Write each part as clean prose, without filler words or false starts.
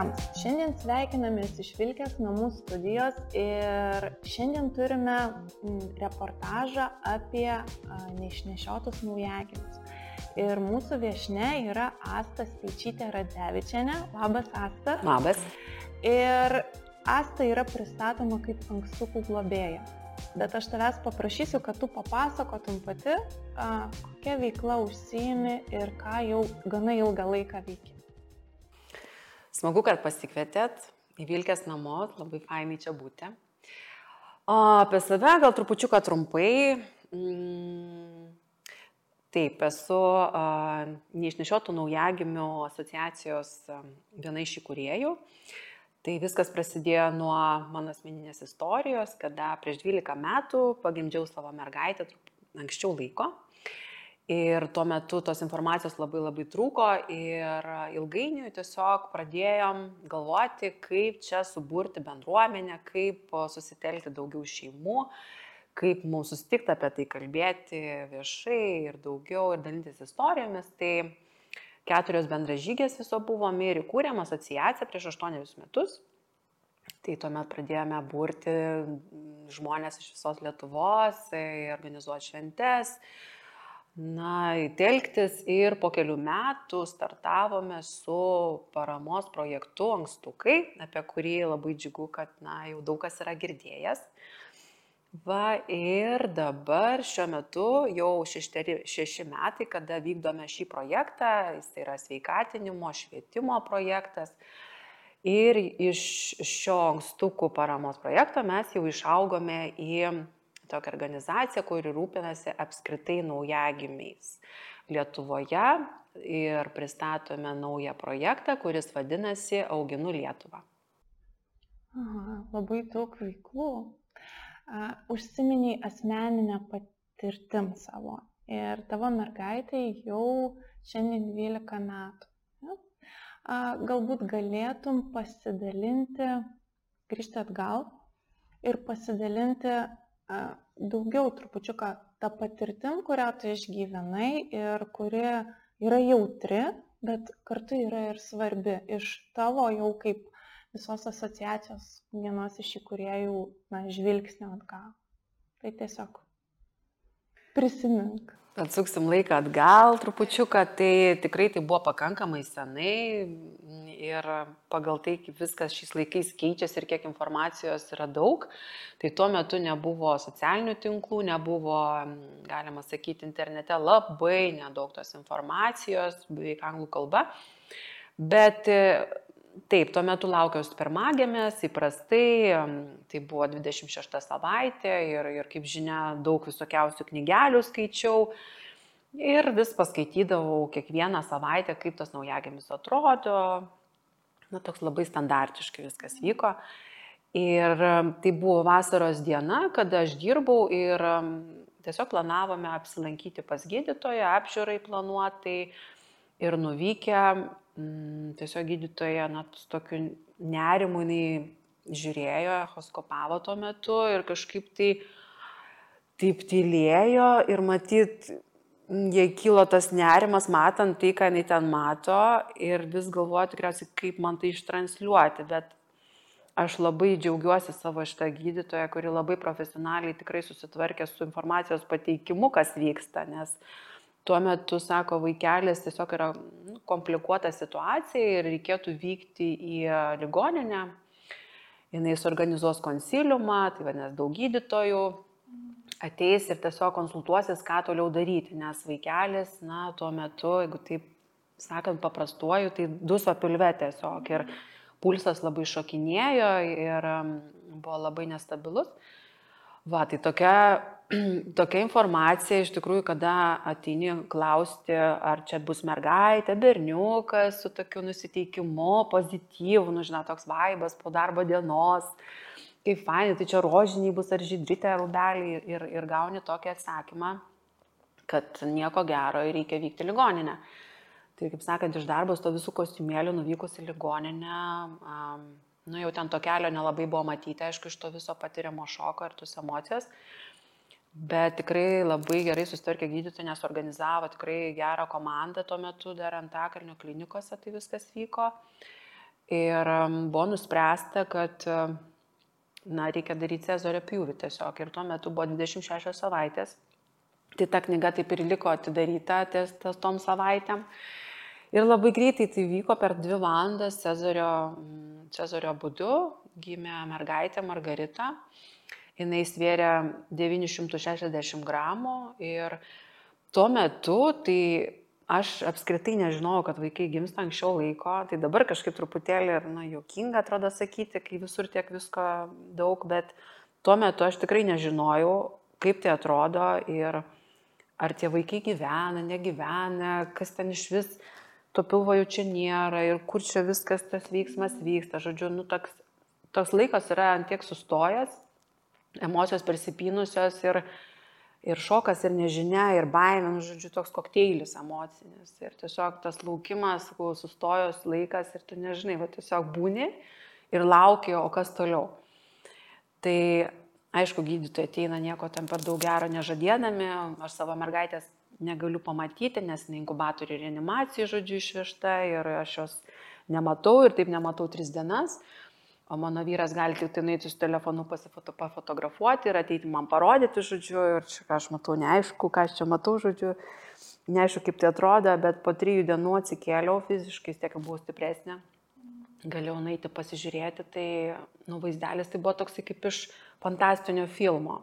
visiems! Šiandien sveikinamės iš Vilkės namų studijos ir šiandien turime reportažą apie neišnešiotus naujagimius. Ir mūsų viešnia yra Asta Speičytė Radzevičienė. Labas, Asta. Labas. Ir Asta yra pristatoma kaip ankstukų globėja. Bet aš tavęs paprašysiu, kad tu papasakotum pati, kokia veikla užsiimi ir ką jau gana ilgą laiką veiki. Smagu, kad pasikvietėt į Vilkės namus, labai fainai čia būti. Apie save gal trupučiuką trumpai. Taip, esu neišnešiotų naujagimių asociacijos viena iš įkūrėjų. Tai viskas prasidėjo nuo mano asmeninės istorijos, kada prieš 12 metų pagimdžiau savo mergaitę anksčiau laiko. Ir tuo metu tos informacijos labai trūko ir ilgainiui tiesiog pradėjom galvoti, kaip čia suburti bendruomenę, kaip susitelkti daugiau šeimų, kaip mums susitikti apie tai kalbėti viešai ir daugiau ir dalintis istorijomis. Tai 4 bendražygės viso buvom ir įkūrėm asociaciją prieš 8 metus. Tai tuomet pradėjome burti žmonės iš visos Lietuvos, organizuoti šventes, telktis ir po kelių metų startavome su paramos projektu Ankstukai, apie kurį labai džiugu, kad jau daug kas yra girdėjęs. Ir dabar šiuo metu jau 6 metai, kada vykdome šį projektą, jis yra sveikatinimo, švietimo projektas. Ir iš šio Ankstukų paramos projekto mes jau išaugome į tokią organizaciją, kuri rūpinasi apskritai naujagimiais Lietuvoje ir pristatome naują projektą, kuris vadinasi Auginu Lietuvą. Labai daug veiklų. Užsiminiai asmeninę patirtim savo ir tavo mergaitai jau šiandien 12 metų. Galbūt galėtum pasidalinti, grįžti atgal ir pasidalinti daugiau trupučiuką tą patirtim, kurią tu išgyvenai ir kuri yra jautri, bet kartu yra ir svarbi iš tavo jau kaip visos asociacijos vienos iš įkūrėjų žvilgsnio atgal. Tai tiesiog prisimink. Atsuksim laiką atgal trupučiuką, tai tikrai tai buvo pakankamai senai ir pagal tai, kaip viskas šiais laikais keičiasi ir kiek informacijos yra daug, tai tuo metu nebuvo socialinių tinklų, nebuvo, galima sakyti, internete labai nedaug tos informacijos, beveik anglų kalba, bet taip, tuo metu laukiausi pirmagimės, įprastai, tai buvo 26 savaitė ir kaip žinia, daug visokiausių knygelių skaičiau ir vis paskaitydavau kiekvieną savaitę, kaip tas naujagimis atrodo, toks labai standartiškai viskas vyko. Ir tai buvo vasaros diena, kada aš dirbau ir tiesiog planavome apsilankyti pas gydytoją, apžiūrai planuotai ir nuvykę. Tiesiog gydytoja su tokiu nerimu jinai žiūrėjo, echoskopavo tuo metu ir kažkaip taip tylėjo ir matyt, jai kilo tas nerimas, matant tai, ką jinai ten mato ir vis galvoju tikriausiai, kaip man tai ištransliuoti, bet aš labai džiaugiuosi savo šitą gydytoją, kuri labai profesionaliai tikrai susitvarkė su informacijos pateikimu, kas vyksta, nes tuo metu, sako, vaikelis tiesiog yra komplikuota situacija ir reikėtų vykti į ligoninę. Jis suorganizuos konsiliumą, tai vadinasi daug gydytojų, ateis ir tiesiog konsultuosis, ką toliau daryti, nes vaikelis, tuo metu, jeigu taip sakant paprastuoju, tai duso pilve tiesiog ir pulsas labai šokinėjo ir buvo labai nestabilus. Tai tokia informacija, iš tikrųjų, kada ateini klausti, ar čia bus mergaitė, berniukas su tokiu nusiteikimu, pozityvu, toks vaibas po darbo dienos, kaip fainai, tai čia rožiniai bus ar žydritė, ar rūbeliai ir gauni tokį atsakymą, kad nieko gero ir reikia vykti į ligoninę. Tai, kaip sakant, iš darbo su to visų kostiumėlių nuvykus į ligoninę, jau ten to kelio nelabai buvo matyti, aišku, iš to viso patiriamo šoko ir tos emocijos. Bet tikrai labai gerai susitvarkė gydytojai, nes organizavo tikrai gerą komandą tuo metu dar Antakalnio klinikose, tai viskas vyko. Ir buvo nuspręsta, kad reikia daryti Cezario pjūvį tiesiog. Ir tuo metu buvo 26 savaitės. Tai ta knyga taip ir liko atidaryta ties tom savaitėm. Ir labai greitai tai vyko per 2 valandas Cezario būdu. Gimė mergaitė Margarita. Jis svėrė 960 gramų. Ir tuo metu tai aš apskritai nežinojau, kad vaikai gimsta anksčiau laiko, tai dabar kažkaip truputėlį juokinga atrodo sakyti, kai visur tiek visko daug, bet tuo metu aš tikrai nežinojau, kaip tai atrodo ir ar tie vaikai gyvena, negyvena, kas ten iš vis, to pilvo jau čia nėra ir kur čia viskas tas veiksmas vyksta. Žodžiu, toks laikas yra antiek sustojęs, emocijos persipynusios ir šokas, ir nežinia, ir baimė, žodžiu, toks kokteilis emocinis. Ir tiesiog tas laukimas, sustojus laikas ir tu nežinai, tiesiog būni ir lauki, o kas toliau. Tai, aišku, gydytojai ateina nieko ten per daug gero nežadėdami, aš savo mergaitės negaliu pamatyti, nes inkubatorių reanimacijai, žodžiu, išvežta ir aš jos nematau ir taip nematau 3 dienas. O mano vyras gali tik tai nueiti su telefonu pafotografuoti ir ateiti man parodyti, žodžiu, ir čia ką aš matau, neaišku, ką aš čia matau, žodžiu, neaišku, kaip tai atrodo, bet po 3 dienų atsikėliau fiziškai, tiek buvau stipresnė, galėjau nueiti pasižiūrėti, tai vaizdelis tai buvo toksai kaip iš fantastinio filmo.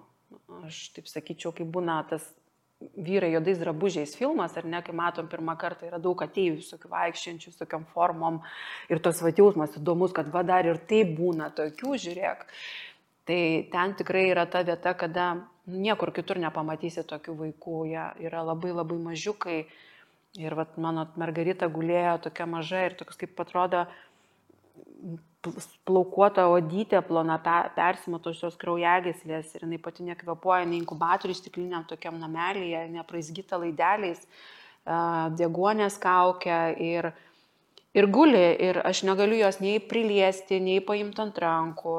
Aš taip sakyčiau, kaip būna tas vyrai juodais drabužiais filmas, ar ne, kai matom pirmą kartą yra daug ateivių, visokių vaikščiančių, visokiam formom ir tos jausmas įdomus, kad dar ir taip būna tokių, žiūrėk. Tai ten tikrai yra ta vieta, kada niekur kitur nepamatysi tokių vaikų, jie yra labai labai mažiukai ir mano Margarita gulėjo tokia maža ir toks kaip atrodo plaukuota odytė, plona persimatusios kraujagyslės ir jinai pati nekvėpuoja, jinai inkubatoriui stikliniam tokiam namelyje, nepraizgyta laideliais, deguonės kaukia ir guli ir aš negaliu jos nei priliesti, nei paimti ant rankų.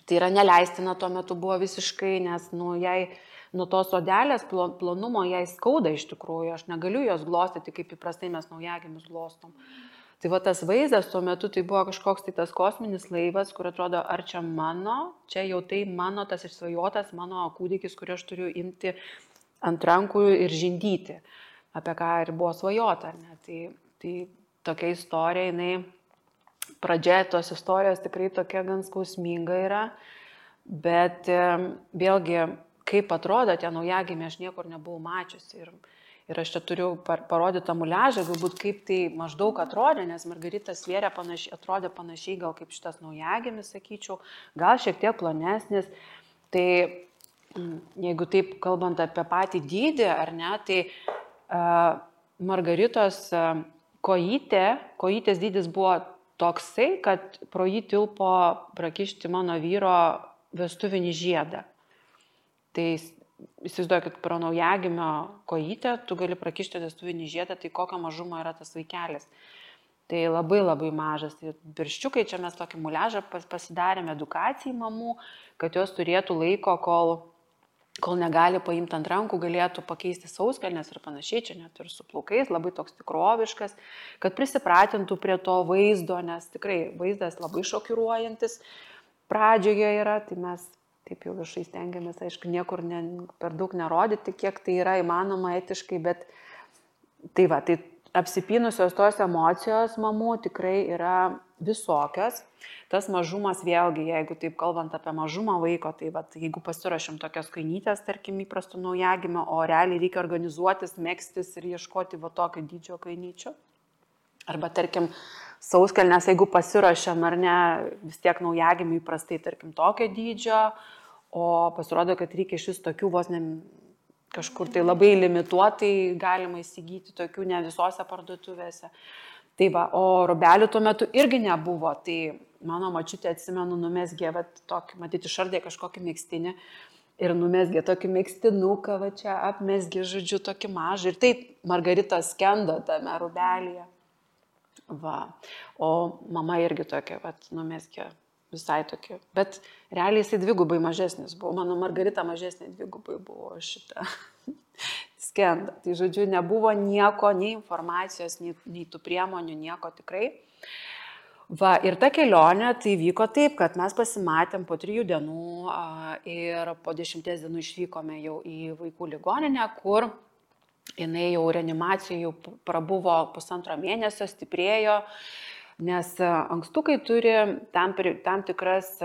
Tai yra neleistina tuo metu buvo visiškai, nes jai nuo tos odelės plonumo jai skauda iš tikrųjų, aš negaliu jos glostyti, kaip įprastai mes naujagimius glostom. Tai tas vaizdas tuo metu tai buvo kažkoks tai tas kosminis laivas, kur atrodo, ar čia jau tai mano tas išsvajotas mano kūdikis, kurį aš turiu imti ant rankų ir žindyti, apie ką ir buvo svajota. Tai tokia istorija, pradžia tos istorijos tikrai tokia gan skausminga yra, bet vėlgi, kaip atrodo tie naujagimiai, aš niekur nebuvau mačiusi. Ir aš čia turiu parodyti tą muliažą, galbūt kaip tai maždaug atrodė, nes Margarita svėrė atrodė panašiai gal kaip šitas naujagimis, sakyčiau, gal šiek tiek plonesnis. Tai jeigu taip kalbant apie patį dydį, ar ne, tai Margaritos kojytės dydis buvo toksai, kad pro jį tilpo prakišti mano vyro vestuvinį žiedą. Tai įsivaizduoju, kad pro naujagimio kojytę tu gali prakišti vestuvinį žiedą, tai kokio mažumo yra tas vaikelis. Tai labai labai mažas. Tai pirščiukai, čia mes tokį muliažą pasidarėme edukacijai mamų, kad jos turėtų laiko, kol negali paimti ant rankų, galėtų pakeisti sauskelnes ir panašiai, čia net ir su plaukais, labai toks tikroviškas, kad prisipratintų prie to vaizdo, nes tikrai vaizdas labai šokiruojantis pradžioje yra, tai mes taip jau viešai stengiamės, aišku, niekur per daug nerodyti, kiek tai yra įmanoma etiškai, bet tai apsipynusios tos emocijos mamų tikrai yra visokios. Tas mažumas vėlgi, jeigu taip kalbant apie mažumą vaiko, tai jeigu pasirašym tokias kainytės, tarkim, įprastų naujagimio, o realiai reikia organizuotis, megztis ir ieškoti tokio dydžio kainyčių. Arba, tarkim, sauskelnes, jeigu pasirašėm ar ne, vis tiek naujagimiui įprastai, tarkim, tokio dydžio, o pasirodo, kad reikia iš vis tokių vos ne kažkur tai labai limituotai galima įsigyti, tokių ne visose parduotuvėse. Tai o rūbelių tuo metu irgi nebuvo, tai mano močiutė, atsimenu, numesgė tokį, matyti, išardė kažkokį megztinį ir numesgė tokį megztinuką, čia apmesgė, žodžiu, tokį mažą ir taip Margarita skendo tame rūbelyje. O mama irgi tokia, numesgė visai tokia, bet realiai jisai dvigubai mažesnis buvo, mano Margarita mažesnė dvigubai buvo šitą skendą. Tai žodžiu, nebuvo nieko, nei informacijos, nei tų priemonių, nieko tikrai. Va, ir ta kelionė tai vyko taip, kad mes pasimatėm po 3 dienų ir po 10 dienų išvykome jau į vaikų ligoninę, kur jinai jau reanimacijų prabuvo 1,5 mėnesio, stiprėjo, nes ankstukai turi tam tikras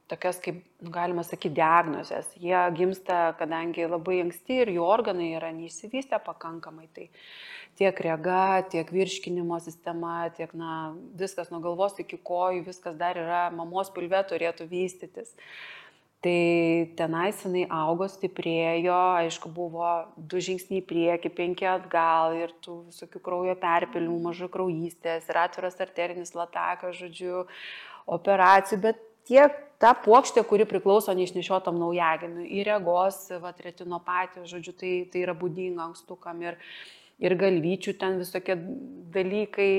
tokias, kaip galima sakyti, diagnozės. Jie gimsta, kadangi labai anksti ir jų organai yra neišsivystę pakankamai. Tai tiek rega, tiek virškinimo sistema, tiek viskas nuo galvos iki kojų, viskas dar yra mamos pilve turėtų vystytis. Tai tenais jinai augo, stiprėjo, aišku, buvo 2 žingsniai į priekį, 5 atgal ir tų visokių kraujo perpilimų, mažų kraujystės ir atviras arterinis latakas, žodžiu, operacijų, bet tiek ta puokštė, kuri priklauso neišnešiotam naujagimiui, į regos, retinopatijos, žodžiu, tai yra būdinga ankstukam ir galvyčių ten visokie dalykai,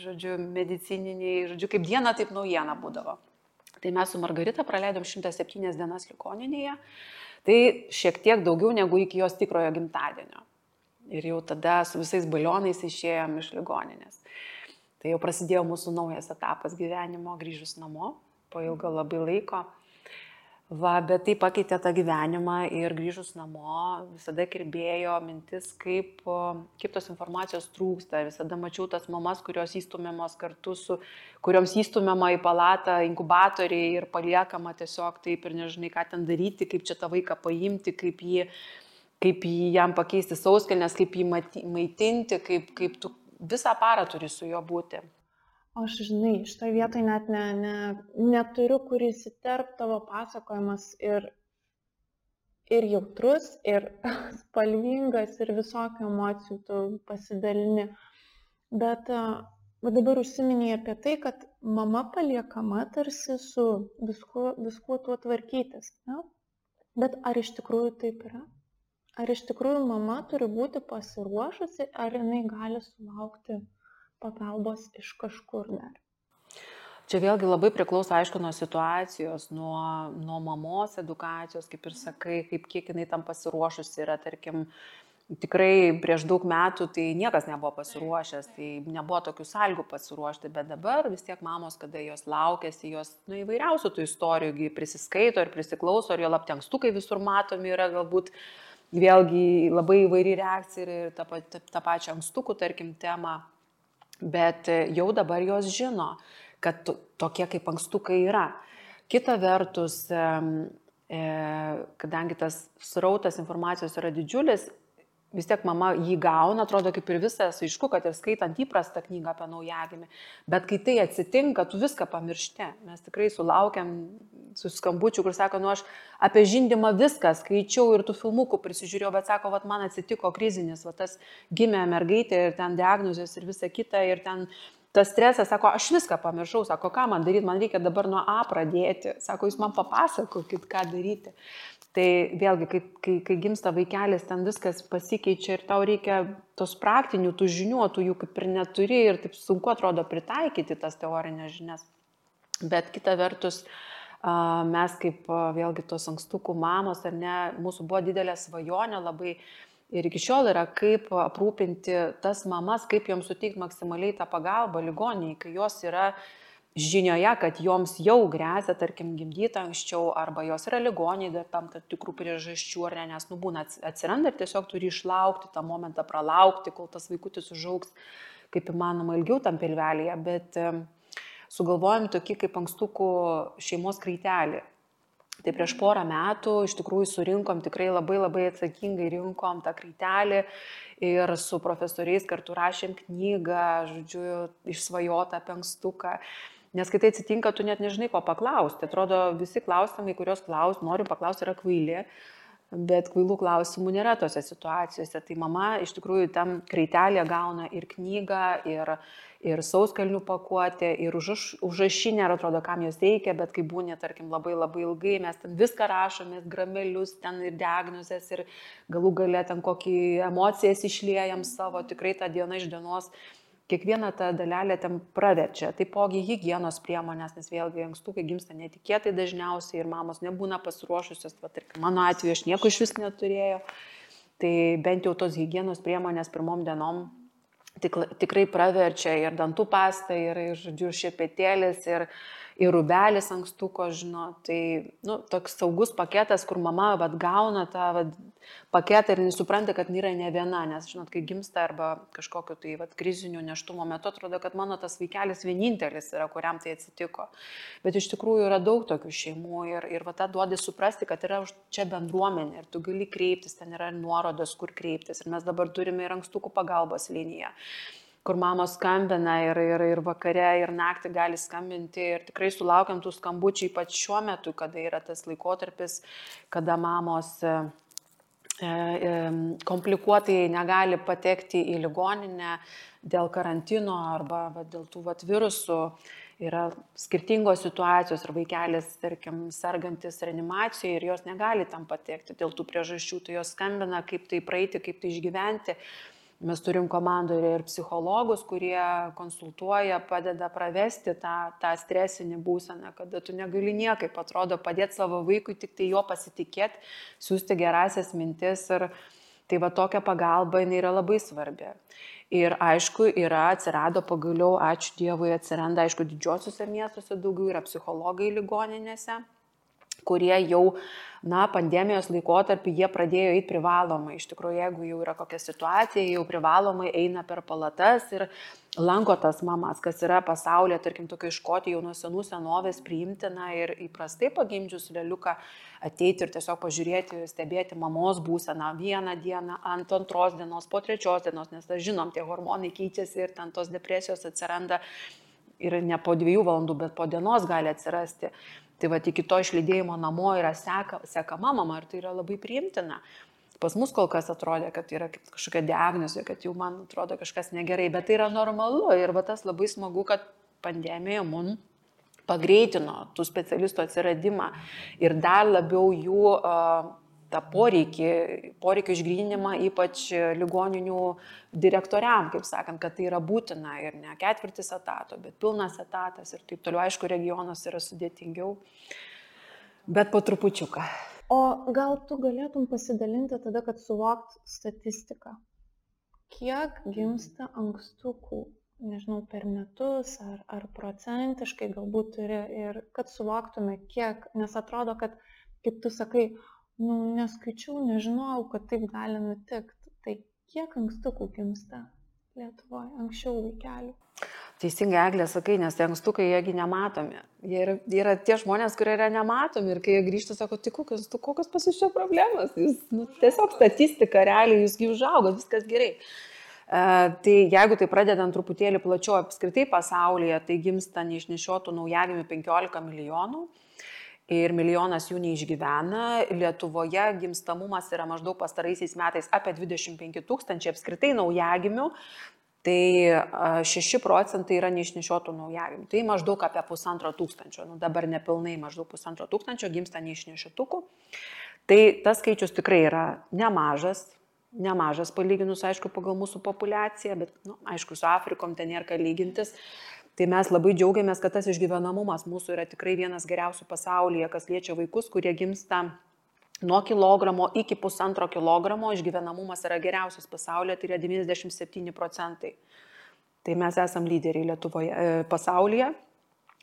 žodžiu, medicininiai, žodžiu, kaip diena, taip naujiena būdavo. Tai mes su Margarita praleidom 107 dienas ligoninėje, tai šiek tiek daugiau negu iki jos tikrojo gimtadienio. Ir jau tada su visais balionais išėjom iš ligoninės. Tai jau prasidėjo mūsų naujas etapas gyvenimo, grįžus namo, po ilgo labai laiko. Va, bet tai pakeitė tą gyvenimą ir grįžus namo visada kirbėjo mintis, kaip tos informacijos trūksta. Visada mačiau tas mamas, kurios įstumiamos kartu kurioms įstumiama į palatą inkubatoriai ir paliekama tiesiog taip ir nežinai, ką ten daryti, kaip čia tą vaiką paimti, kaip jį jam pakeisti sauskelnes, kaip jį maitinti, kaip tu visą parą turi su juo būti. Aš, žinai, šitoje vietoje net neturiu, kur įsiterp tavo pasakojimas ir jautrus, ir spalvingas, ir visokių emocijų tu pasidalini. Bet dabar užsiminėjai apie tai, kad mama paliekama tarsi su viskuo tuo tvarkytis. Ne? Bet ar iš tikrųjų taip yra? Ar iš tikrųjų mama turi būti pasiruošusi, ar jinai gali sulaukti pagalbos iš kažkur dar? Čia vėlgi labai priklauso, aišku, nuo situacijos, nuo mamos edukacijos, kaip ir sakai, kiek jinai tam pasiruošusi yra, tarkim, tikrai prieš daug metų tai niekas nebuvo pasiruošęs, tai nebuvo tokių sąlygų pasiruošti, bet dabar vis tiek mamos, kada jos laukėsi, jos įvairiausių tų istorijų prisiskaito ir prisiklauso, ir jo laptenkstukai visur matomi yra, galbūt vėlgi labai įvairi reakcija ir tą pačią ankstukų, tarkim, temą. Bet jau dabar jos žino, kad tokie kaip ankstukai yra. Kita vertus, kadangi tas srautas informacijos yra didžiulis, vis tiek mama jį gauna, atrodo kaip ir visas, aišku, kad ir skaitant įprastą knygą apie naujagimį. Bet kai tai atsitinka, tu viską pamiršti. Mes tikrai sulaukiam su skambučiu, kur sako, aš apie žindymą viską skaičiau ir tų filmukų prisižiūrėjau, bet sako, man atsitiko krizinis, tas gimė mergaitė ir ten diagnozės ir visa kita ir ten tas stresas, sako, aš viską pamiršau, sako, ką man daryti, man reikia dabar nuo A pradėti, sako, jūs man papasakokit, ką daryti. Tai vėlgi, kai gimsta vaikelis, ten viskas pasikeičia ir tau reikia tos praktinių, tų žinių, tu jų kaip ir neturi ir taip sunku atrodo pritaikyti tas teorinės žinias. Bet kita vertus, mes kaip vėlgi tos ankstukų mamos, ar ne, mūsų buvo didelė svajonė labai ir iki šiol yra, kaip aprūpinti tas mamas, kaip joms suteikti maksimaliai tą pagalbą ligoninėje, kai jos yra žinioje, kad joms jau grėsia, tarkim, gimdyti anksčiau, arba jos yra ligoninėje dar tam tikrų priežasčių, ar ne, nes būna atsiranda ir tiesiog turi išlaukti tą momentą, pralaukti, kol tas vaikutis užaugs kaip įmanoma ilgiau tam pilvelėje, bet sugalvojom tokį kaip ankstukų šeimos kraitelį. Tai prieš porą metų iš tikrųjų surinkom, tikrai labai atsakingai rinkom tą kraitelį ir su profesoriais kartu rašėm knygą, žodžiu, išsvajotą apie ankstuką. Nes kai tai atsitinka, tu net nežinai, ko paklausti. Atrodo, visi klausimai, kuriuos noriu paklausti, yra kvaili, bet kvailų klausimų nėra tose situacijose. Tai mama iš tikrųjų tam kraitelėje gauna ir knygą, ir sauskelnių pakuotę, ir užrašinę, ir atrodo, kam jos reikia, bet kai būnė, tarkim, labai ilgai, mes ten viską rašomės, gramelius, ten ir diagnozės, ir galų gale ten kokį emocijas išliejam savo, tikrai tą dieną iš dienos. Kiekvieną tą dalelę ten praverčia. Taipogi higienos priemonės, nes vėlgi ankstukai gimsta netikėtai dažniausiai ir mamos nebūna pasiruošusios. Mano atveju aš nieko iš vis neturėjau. Tai bent jau tos higienos priemonės pirmom dienom tikrai praverčia ir dantų pasta, ir žodžiu, šepetėlis, ir rubelis ankstuko, žino. Tai, toks saugus paketas, kur mama gauna tą paketą ir nesupranta, kad yra ne viena, nes, žinot, kai gimsta arba kažkokio tai krizinių nėštumo metu, atrodo, kad mano tas vaikelis vienintelis yra, kuriam tai atsitiko. Bet iš tikrųjų yra daug tokių šeimų ir tą duodi suprasti, kad yra čia bendruomenė ir tu gali kreiptis, ten yra nuorodos, kur kreiptis. Ir mes dabar turime ir ankstukų pagalbos liniją, kur mamos skambina ir vakare, ir naktį gali skambinti. Ir tikrai sulaukiam tų skambučių, ypač šiuo metu, kada yra tas laikotarpis, kada mamos komplikuotai negali patekti į ligoninę dėl karantino arba dėl tų virusų. Yra skirtingos situacijos ir vaikelis, tarkim, sergantis reanimacijoje ir jos negali tam patekti dėl tų priežasčių. Tai jos skambina, kaip tai praeiti, kaip tai išgyventi. Mes turim komandoje ir psichologus, kurie konsultuoja, padeda pravesti tą stresinį būseną, kada tu negali niekaip, atrodo, padėti savo vaikui, tik tai jo pasitikėti, siūsti gerasias mintis. Ir tai tokia pagalba jinai yra labai svarbi. Ir aišku, atsirado pagaliau, ačiū Dievui, atsiranda, aišku, didžiosiuose miestuose daugiau yra psichologai ligoninėse, kurie jau, pandemijos laikotarpį jie pradėjo eiti privalomai. Iš tikrųjų, jeigu jau yra kokia situacija, jau privalomai eina per palatas ir lanko tas mamas, kas yra pasaulyje, tarkim, tokia Škotija jau nuo senų senovės priimtina ir įprastai pagimdžius leliuką ateiti ir tiesiog pažiūrėti, stebėti mamos būseną vieną dieną, ant antros dienos, po trečios dienos, nes žinom, tie hormonai keičiasi ir ten tos depresijos atsiranda ir ne po 2 valandų, bet po dienos gali atsirasti. Tai iki to išlydėjimo namo yra sekama mama ir tai yra labai priimtina. Pas mus kol kas atrodė, kad yra kažkokia diagnozė, kad jau man atrodo kažkas negerai, bet tai yra normalu ir tas labai smagu, kad pandemija mums pagreitino tų specialistų atsiradimą ir dar labiau jų tą poreikį išgryninimą, ypač ligoninių direktoriam, kaip sakant, kad tai yra būtina ir ne 1/4 etato, bet pilnas etatas ir taip toliau. Aišku, regionuose yra sudėtingiau, bet po trupučiuką. O gal tu galėtum pasidalinti tada, kad suvokt statistiką? Kiek gimsta ankstukų, nežinau, per metus ar procentiškai galbūt turi ir kad suvoktume kiek, nes atrodo, kad, kaip tu sakai, neskaičiau, nežinojau, kad taip gali nutikti. Tai kiek ankstukų gimsta Lietuvoje, anksčiau vaikelių? Teisingai, Eglė, sakai, nes tie ankstukai, jiegi nematomi. Jie yra tie žmonės, kurie yra nematomi ir kai jie grįžta, sako, tai kokios pas jūs čia problemos? Jūs, tiesiog statistika, realiai jūsgi užaugo, viskas gerai. Tai jeigu tai pradedant truputėlį plačiau apskritai pasaulyje, tai gimsta neišnešiotų naujagimių 15 milijonų. Ir 1 milijonas jų neišgyvena. Lietuvoje gimstamumas yra maždaug pastaraisiais metais apie 25 000 apskritai naujagimių, tai 6% yra neišnešiotų naujagimių. Tai maždaug apie 1500, dabar nepilnai maždaug 1500 gimsta neišnešiotukų. Tai tas skaičius tikrai yra nemažas palyginus, aišku, pagal mūsų populiaciją, bet, aišku, su Afrikom ten nėra ką lygintis. Tai mes labai džiaugiamės, kad tas išgyvenamumas mūsų yra tikrai vienas geriausių pasaulyje, kas liečia vaikus, kurie gimsta nuo kilogramo iki 1,5 kilogramo, išgyvenamumas yra geriausias pasaulyje, tai yra 97%. Tai mes esam lyderiai Lietuvoje, pasaulyje,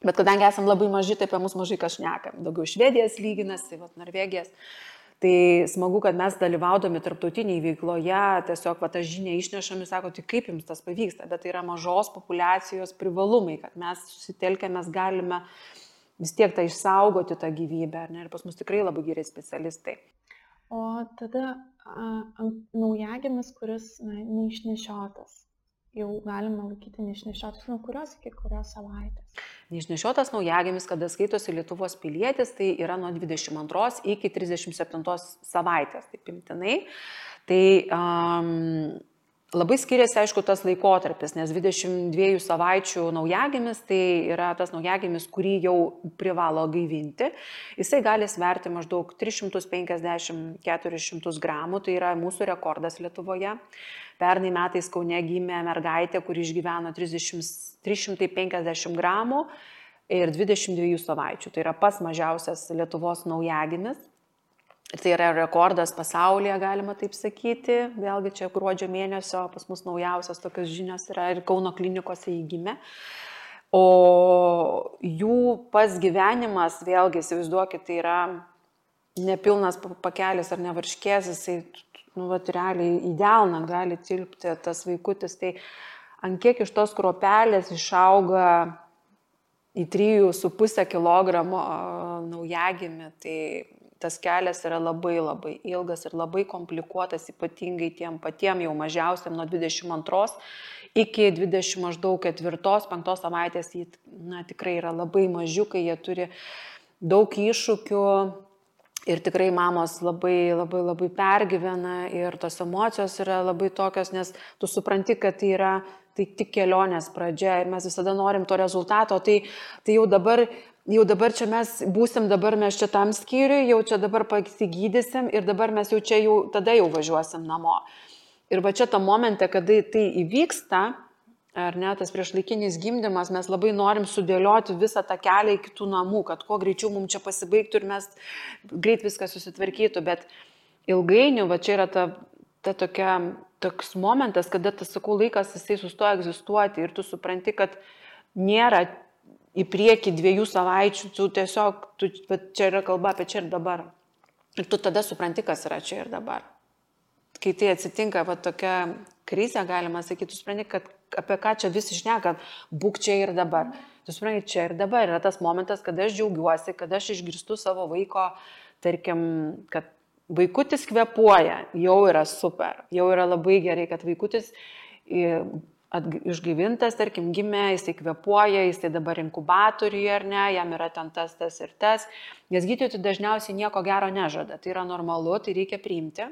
bet kadangi esam labai maži, tai apie mus mažai kas šnekam. Daugiau Švedijas lyginasi, Norvegijas. Tai smagu, kad mes dalyvaudami tarptautiniai veikloje, tiesiog tą žinią išnešami, sako, tai kaip jums tas pavyksta, bet tai yra mažos populiacijos privalumai, kad mes susitelkę, mes galime vis tiek tą išsaugoti tą gyvybę, ir pas mus tikrai labai geri specialistai. O tada naujagimis, kuris neišnešiotas, jau galima laikyti neišnešiotas, nuo kurios iki kurios savaitės? Neišnešiotas naujagimis, kada skaitosi Lietuvos pilietis, tai yra nuo 22 iki 37 savaitės, taip imtinai. Tai labai skiriasi, aišku, tas laikotarpis, nes 22 savaičių naujagimis, tai yra tas naujagimis, kurį jau privalo gaivinti. Jisai gali sverti maždaug 350-400 gramų, tai yra mūsų rekordas Lietuvoje. Pernai metais Kaune gimė mergaitė, kuri išgyveno 350 gramų ir 22 savaičių. Tai yra pats mažiausias Lietuvos naujagimis. Tai yra rekordas pasaulyje, galima taip sakyti. Vėlgi čia gruodžio mėnesio pas mus naujausios tokios žinios yra ir Kauno klinikose įgimė. O jų pats gyvenimas, vėlgi, įsivaizduokit, tai yra nepilnas pakelis ar nevarškės, jisai, realiai į delną gali tilpti tas vaikutis. Tai ant kiek iš tos kruopelės išauga į 3,5 kg naujagimį, tai tas kelias yra labai labai ilgas ir labai komplikuotas, ypatingai tiem patiem jau mažiausiam nuo 22 iki 20 maždaug 4-5 savaitės, tikrai yra labai mažiukai, jie turi daug iššūkių ir tikrai mamos labai labai labai pergyvena ir tos emocijos yra labai tokios, nes tu supranti, kad tai tik kelionės pradžia ir mes visada norim to rezultato, tai jau dabar čia mes būsim, dabar mes čia tam skyriui, jau čia dabar pasigydysim ir dabar mes jau čia tada jau važiuosim namo. Ir va čia tą momentą, kada tai įvyksta, ar ne, tas priešlaikinis gimdymas, mes labai norim sudėlioti visą tą kelią iki tų namų, kad kuo greičiau mums čia pasibaigtų ir mes greit viską susitvarkytų, bet ilgainiui, va čia yra toks momentas, kada tas, sakau, laikas jisai sustoja egzistuoti ir tu supranti, kad nėra į priekį 2 savaičių, tu tiesiog, čia yra kalba apie čia ir dabar. Ir tu tada supranti, kas yra čia ir dabar. Kai tai atsitinka, tokia krizė, galima sakyti, tu supranti, kad apie ką čia visi šneka, būk čia ir dabar. Tu supranti, čia ir dabar yra tas momentas, kada aš džiaugiuosi, kada aš išgirstu savo vaiko, tarkim, kad vaikutis kvėpuoja, jau yra super, jau yra labai gerai, kad vaikutis išgyvintas, tarkim, gimė, jisai kvėpuoja, jisai dabar inkubatoriuje ar ne, jam yra ten tas ir tas, nes gydytojai dažniausiai nieko gero nežada, tai yra normalu, tai reikia priimti,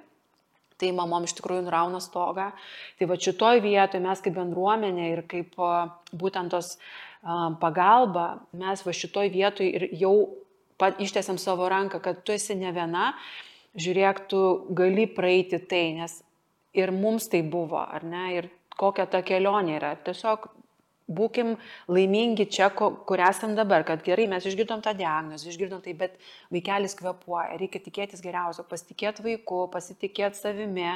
tai mamom iš tikrųjų nurauna stogą, tai va šitoj vietoje mes kaip bendruomenė ir kaip būtent tos pagalba, mes va šitoj vietoje ir jau ištiesiam savo ranką, kad tu esi ne viena, žiūrėk, tu gali praeiti tai, nes ir mums tai buvo, ar ne, ir kokia ta kelionė yra. Tiesiog būkim laimingi čia, kur esam dabar, kad gerai, mes išgirdom tą diagnozę, išgirdom tai, bet vaikelis kvėpuoja, reikia tikėtis geriausio, pasitikėti vaiku, pasitikėti savimi.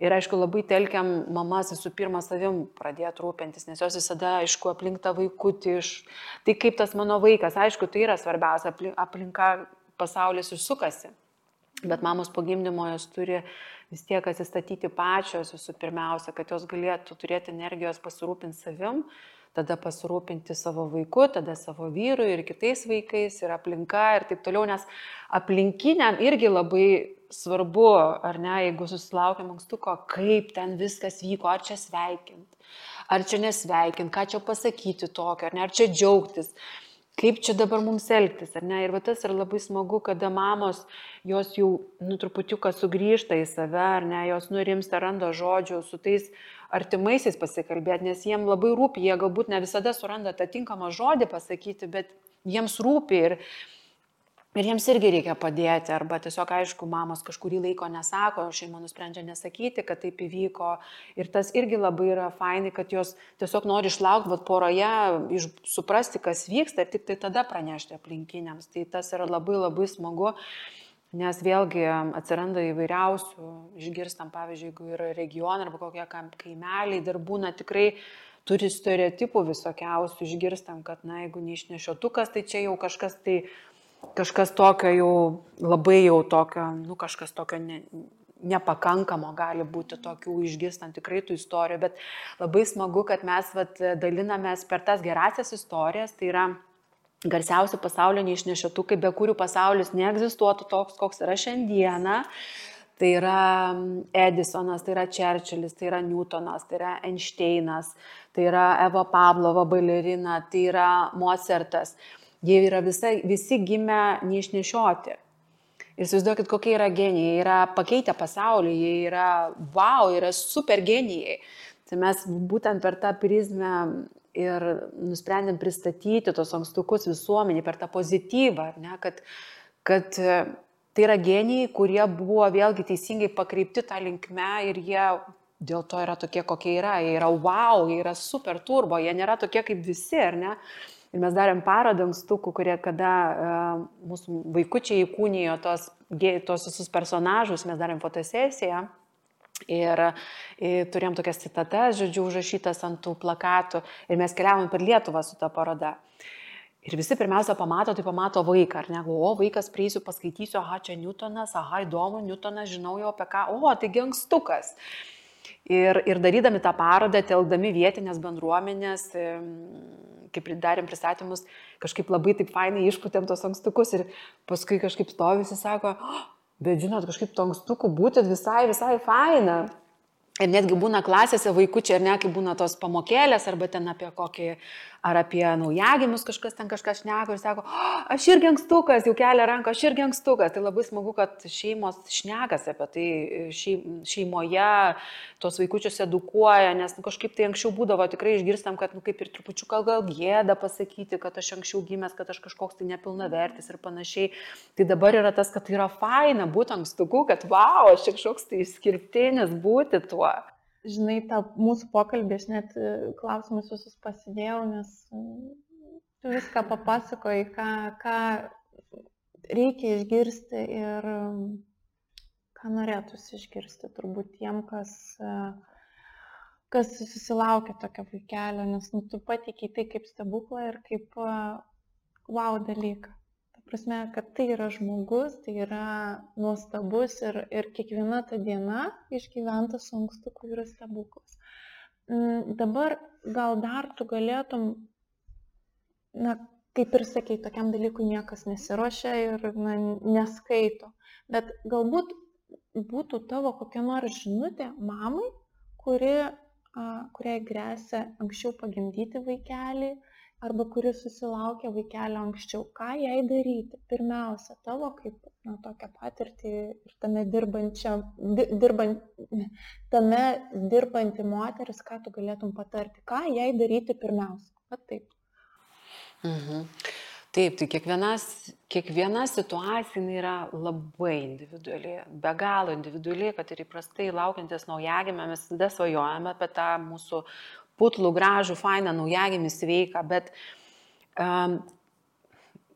Ir aišku, labai telkiam mamas visų pirma savim pradėti rūpintis, nes jos visada, aišku, aplink tą vaikutį. Tai kaip tas mano vaikas, aišku, tai yra svarbiausia, aplinka pasaulis išsukasi. Bet mamos po gimdymo jos turi vis tiek atsistatyti pačios visų pirmiausia, kad jos galėtų turėti energijos pasirūpinti savim, tada pasirūpinti savo vaiku, tada savo vyru ir kitais vaikais ir aplinka ir taip toliau, nes aplinkiniam irgi labai svarbu, ar ne, jeigu susilaukiam ankstuko, kaip ten viskas vyko, ar čia sveikint, ar čia nesveikint, ką čia pasakyti tokio, ar ne, ar čia džiaugtis. Kaip čia dabar mums elgtis, ar ne? Ir va tas yra labai smagu, kada mamos, jos jau truputiuką sugrįžta į save, ar ne, jos nurimsta, randa žodžių su tais artimaisiais pasikalbėti, nes jiems labai rūpi, jie galbūt ne visada suranda tą tinkamą žodį pasakyti, bet jiems rūpi ir jiems irgi reikia padėti, arba tiesiog, aišku, mamos kažkurį laiko nesako, šeima nusprendžia nesakyti, kad taip įvyko. Ir tas irgi labai yra fainai, kad jos tiesiog nori išlaukti poroje, suprasti, kas vyksta ir tik tai tada pranešti aplinkiniams. Tai tas yra labai labai smagu, nes vėlgi atsiranda įvairiausių, išgirstam, pavyzdžiui, jeigu yra regionai arba kokie kaimeliai, dar būna tikrai turi stereotipų visokiausių, išgirstam, kad, jeigu neišnešiotukas, tai čia jau kažkas tokio jau labai jau tokio, kažkas tokio nepakankamo gali būti tokių išgirstant tikrai tų istorijų, bet labai smagu, kad mes dalinamės per tas gerasias istorijas, tai yra garsiausi pasaulio neišnešiotukai, be kurių pasaulis neegzistuotų toks, koks yra šiandieną. Tai yra Edisonas, tai yra Čerčilis, tai yra Newtonas, tai yra Einšteinas, tai yra Eva Pavlova balerina, tai yra Mozartas. Jie yra visi gimę neišnešioti. Ir įsivaizduokit, kokie yra genijai. Jie yra pakeitę pasaulį, jie yra yra super genijai. Tai mes būtent per tą prizmę ir nusprendėm pristatyti tos ankstukus visuomenį, per tą pozityvą, ne, kad tai yra genijai, kurie buvo vėlgi teisingai pakreipti tą linkme ir jie dėl to yra tokie, kokie yra. Jie yra jie yra super turbo, jie nėra tokie kaip visi, ar ne? Ir mes darėm parodą ankstukų, kurie kada mūsų vaikučiai įkūnijo tos visus personažus, mes darėm fotosesiją. Ir turėjom tokias citatas, žodžiu, užrašytas ant tų plakatų ir mes keliavom per Lietuvą su ta paroda. Ir visi pirmiausia pamato vaiką, ar ne, o vaikas prieisiu, paskaitysiu, aha, čia Newtonas, aha, įdomu, Newtonas, žinau jau apie ką, o, taigi ankstukas. Ir darydami tą parodą, telkdami vietinės bendruomenės, kaip darėm pristatymus, kažkaip labai taip fainai išputėm tos ankstukus ir paskui kažkaip stovisi, sako, bet žinot, kažkaip to ankstukų būti visai faina. Ir netgi būna klasėse vaikučiai, ar ne, kai būna tos pamokėlės, arba ten apie kokį, ar apie naujagimius kažkas ten kažkas šneka ir sako, aš irgi ankstukas, jau kelia ranką, aš irgi ankstukas. Tai labai smagu, kad šeimos šnekas apie tai, šeimoje tos vaikučius edukuoja, nes kažkaip tai anksčiau būdavo, tikrai išgirstam, kad kaip ir trupučiuką gal gėda pasakyti, kad aš anksčiau gimęs, kad aš kažkoks tai nepilnavertis ir panašiai. Tai dabar yra tas, kad tai yra faina būti ankstuku, kad wow, aš kažkoks tai išskirtinis būti tuo. Žinai, tą mūsų pokalbį aš net klausimus visus pasidėjau, nes tu viską papasakoji, ką reikia išgirsti ir ką norėtųsi išgirsti turbūt tiem, kas susilaukia tokio vaikelio, nes tu pateikiai tai kaip stebuklą ir kaip wow dalyką. Prasme, kad tai yra žmogus, tai yra nuostabus ir kiekviena ta diena išgyventa su ankstuku yra stebuklas. Dabar gal dar tu galėtum, kaip ir sakei, tokiam dalykui niekas nesiruošia ir neskaito, bet galbūt būtų tavo kokia nors žinutė mamai, kuriai gresia anksčiau pagimdyti vaikelį, arba kuris susilaukia vaikelio anksčiau, ką jai daryti? Pirmiausia, tavo kaip tokią patirtį ir tame dirbanti moteris, ką tu galėtum patarti, ką jai daryti pirmiausia? Vat taip. Taip, tai kiekviena situacija yra labai individuali, be galo individuali, kad ir įprastai laukiantis naujagimę mes tada svajojame apie tą mūsų putlų, gražų, fainą naujagimį sveiką, bet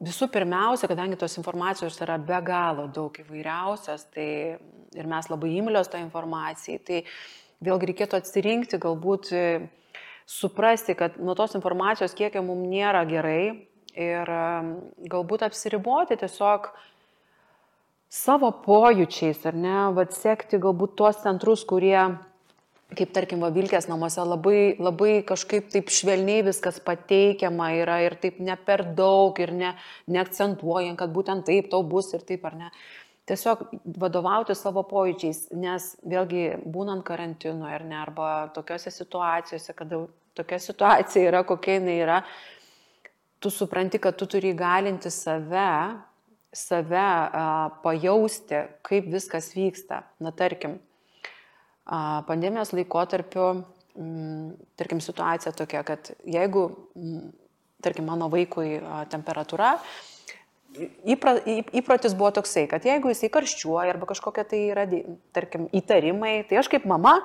visų pirmiausia, kadangi tos informacijos yra be galo daug įvairiausios, tai ir mes labai imlios tą informaciją, tai vėlgi reikėtų atsirinkti, galbūt suprasti, kad nuo tos informacijos kiekio mums nėra gerai ir galbūt apsiriboti tiesiog savo pojūčiais, ar ne, sekti galbūt tuos centrus, kurie kaip tarkim Vilkės namuose labai kažkaip taip švelniai viskas pateikiama yra ir taip ne per daug ir neakcentuojant, kad būtent taip tau bus ir taip ar ne. Tiesiog vadovauti savo pojūčiais, nes vėlgi būnant karantino ar ne, arba tokiose situacijose, kada tokia situacija yra, kokia jinai yra, tu supranti, kad tu turi įgalinti save pajausti, kaip viskas vyksta. Na tarkim, pandemijos laikotarpiu, tarkim, situacija tokia, kad jeigu, tarkim, mano vaikui temperatūra, įprotis buvo toksai, kad jeigu jisai karščiuoja arba kažkokia tai yra, tarkim, įtarimai, tai aš kaip mama,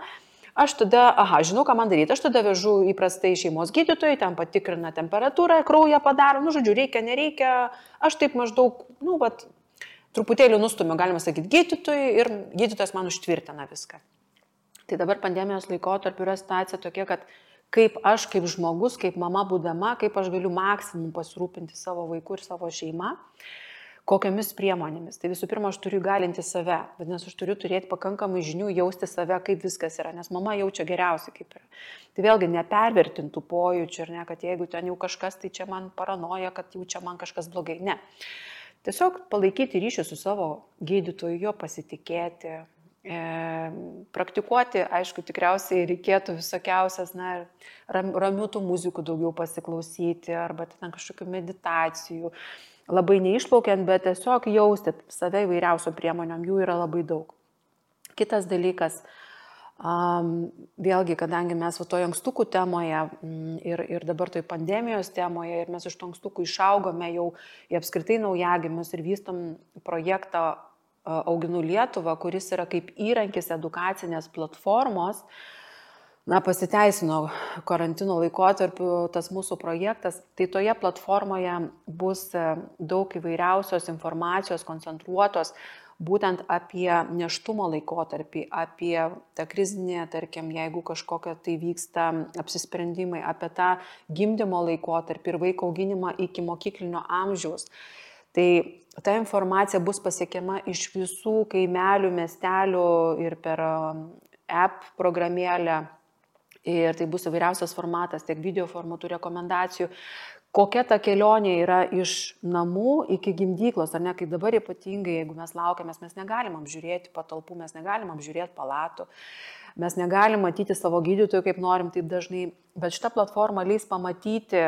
aš tada, žinau, ką man daryti, aš tada vežu įprastai šeimos gydytojai, ten patikrina temperatūrą, kraują padaro, žodžiu, reikia, nereikia, aš taip maždaug, truputėlį nustumiu, galima sakyti, gydytojai ir gydytojas man užtvirtina viską. Tai dabar pandemijos laikotarpiu yra situacija tokia, kad kaip aš, kaip žmogus, kaip mama būdama, kaip aš galiu maksimum pasirūpinti savo vaiku ir savo šeima, kokiamis priemonėmis. Tai visų pirma, aš turiu galinti save, vadinasi, aš turiu turėti pakankamai žinių, jausti save, kaip viskas yra, nes mama jaučia geriausiai, kaip yra. Tai vėlgi nepervertintų pojūčių, ir ne, kad jeigu ten jau kažkas, tai čia man paranoja, kad jau čia man kažkas blogai. Ne. Tiesiog palaikyti ryšį su savo gydytoju, jo pasitikėti, praktikuoti, aišku, tikriausiai reikėtų visokiausias, ramių tų muzikų daugiau pasiklausyti, arba ten kažkokių meditacijų, labai neišplaukiant, bet tiesiog jausti save įvairiausių priemonių, jų yra labai daug. Kitas dalykas, vėlgi, kadangi mes toje ankstukų temoje ir dabar toje pandemijos temoje, ir mes iš to ankstukų išaugome jau į apskritai naujagimius ir vystom projektą Auginu Lietuvą, kuris yra kaip įrankis edukacinės platformos pasiteisino karantino laikotarpiu tas mūsų projektas, tai toje platformoje bus daug įvairiausios informacijos koncentruotos būtent apie nėštumo laikotarpį, apie tą krizinę, tarkim, jeigu kažkokia tai vyksta apsisprendimai, apie tą gimdymo laikotarpį ir vaiko auginimą iki mokyklinio amžiaus. Tai ta informacija bus pasiekiama iš visų kaimelių, miestelių ir per app programėlę. Ir tai bus įvairiausias formatas, tiek video formatų, rekomendacijų. Kokia ta kelionė yra iš namų iki gimdyklos, ar ne, kai dabar ypatingai, jeigu mes laukiamės, mes negalim apžiūrėti patalpų, mes negalim apžiūrėti palatų, mes negalim matyti savo gydytojų, kaip norim taip dažnai, bet šita platforma leis pamatyti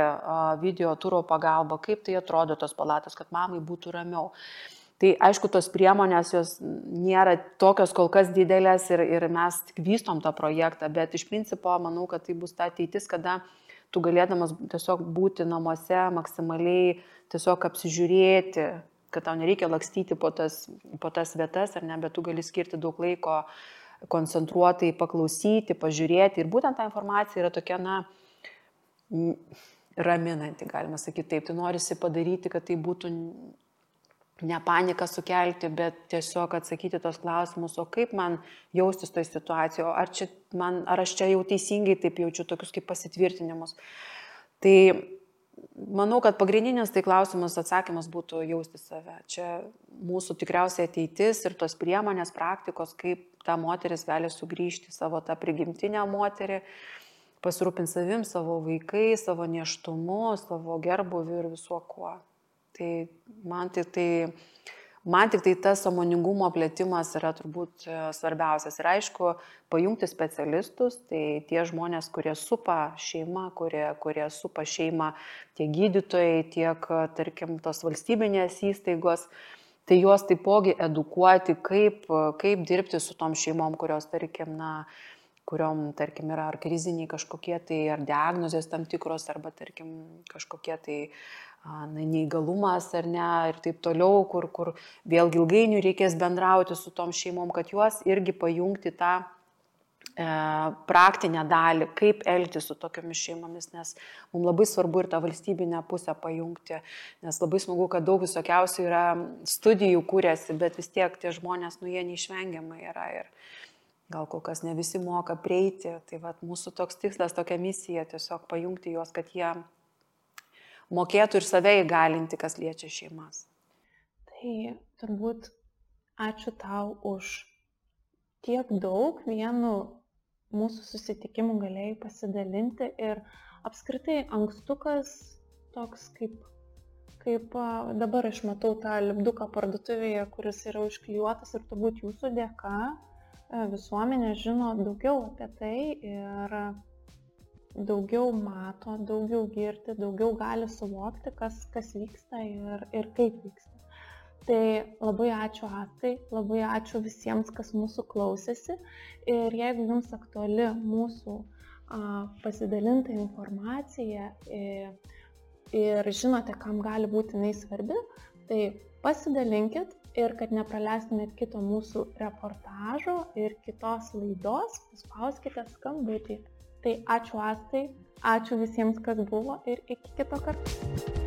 video turo pagalba, kaip tai atrodo tos palatos, kad mamai būtų ramiau. Tai aišku, tos priemonės jos nėra tokios kol kas didelės ir mes tik vystom tą projektą, bet iš principo manau, kad tai bus ta ateitis, kada tu galėdamas tiesiog būti namuose maksimaliai, tiesiog apsižiūrėti, kad tau nereikia lakstyti po tas vietas, ar ne, bet tu gali skirti daug laiko koncentruotai paklausyti, pažiūrėti. Ir būtent ta informacija yra tokia, raminanti, galima sakyti taip. Tai norisi padaryti, kad tai būtų ne paniką sukelti, bet tiesiog atsakyti tos klausimus, o kaip man jaustis toj situacijoje, ar aš čia jau teisingai taip jaučiu, tokius kaip pasitvirtinimus. Tai manau, kad pagrindinis tai klausimas, atsakymas būtų jausti save. Čia mūsų tikriausiai ateitis ir tos priemonės, praktikos, kaip ta moteris gali sugrįžti savo tą prigimtinę moterį, pasirūpinti savim, savo vaikais, savo nėštumu, savo gerbuviu ir visuo kuo. Tai man tik tai tas sąmoningumo plėtimas yra turbūt svarbiausias. Ir aišku, pajungti specialistus, tai tie žmonės, kurie supa šeimą, kurie supa šeimą, tiek gydytojai, tiek, tarkim, tos valstybinės įstaigos, tai juos taipogi edukuoti, kaip dirbti su tom šeimom, kurios, tarkim, kuriom, tarkim, yra ar kriziniai kažkokie tai, ar diagnozės tam tikros, arba, tarkim, kažkokie tai neįgalumas ar ne, ir taip toliau, kur vėlgi ilgainiui reikės bendrauti su tom šeimom, kad juos irgi pajungti tą praktinę dalį, kaip elgtis su tokiomis šeimomis, nes mums labai svarbu ir tą valstybinę pusę pajungti, nes labai smagu, kad daug visokiausių yra studijų kūrėsi, bet vis tiek tie žmonės, jie neišvengiamai yra ir gal kol kas ne visi moka prieiti, tai vat mūsų toks tikslas, tokia misija, tiesiog pajungti juos, kad jie mokėtų ir save įgalinti, kas liečia šeimas. Tai turbūt ačiū tau už tiek daug vienu mūsų susitikimu galėjai pasidalinti ir apskritai ankstukas toks kaip dabar aš matau tą lipduką parduotuvėje, kuris yra užklijuotas ir turbūt jūsų dėka visuomenė žino daugiau apie tai ir daugiau mato, daugiau girdi, daugiau gali suvokti, kas vyksta ir kaip vyksta. Tai labai ačiū Astai, labai ačiū visiems, kas mūsų klausėsi. Ir jeigu jums aktuali mūsų pasidalinta informacija ir žinote, kam gali būti jinai svarbi, tai pasidalinkit ir kad nepraleistumėt kito mūsų reportažo ir kitos laidos, paspauskite skambutį. Tai ačiū Astai, ačiū visiems, kas buvo ir iki kito karto.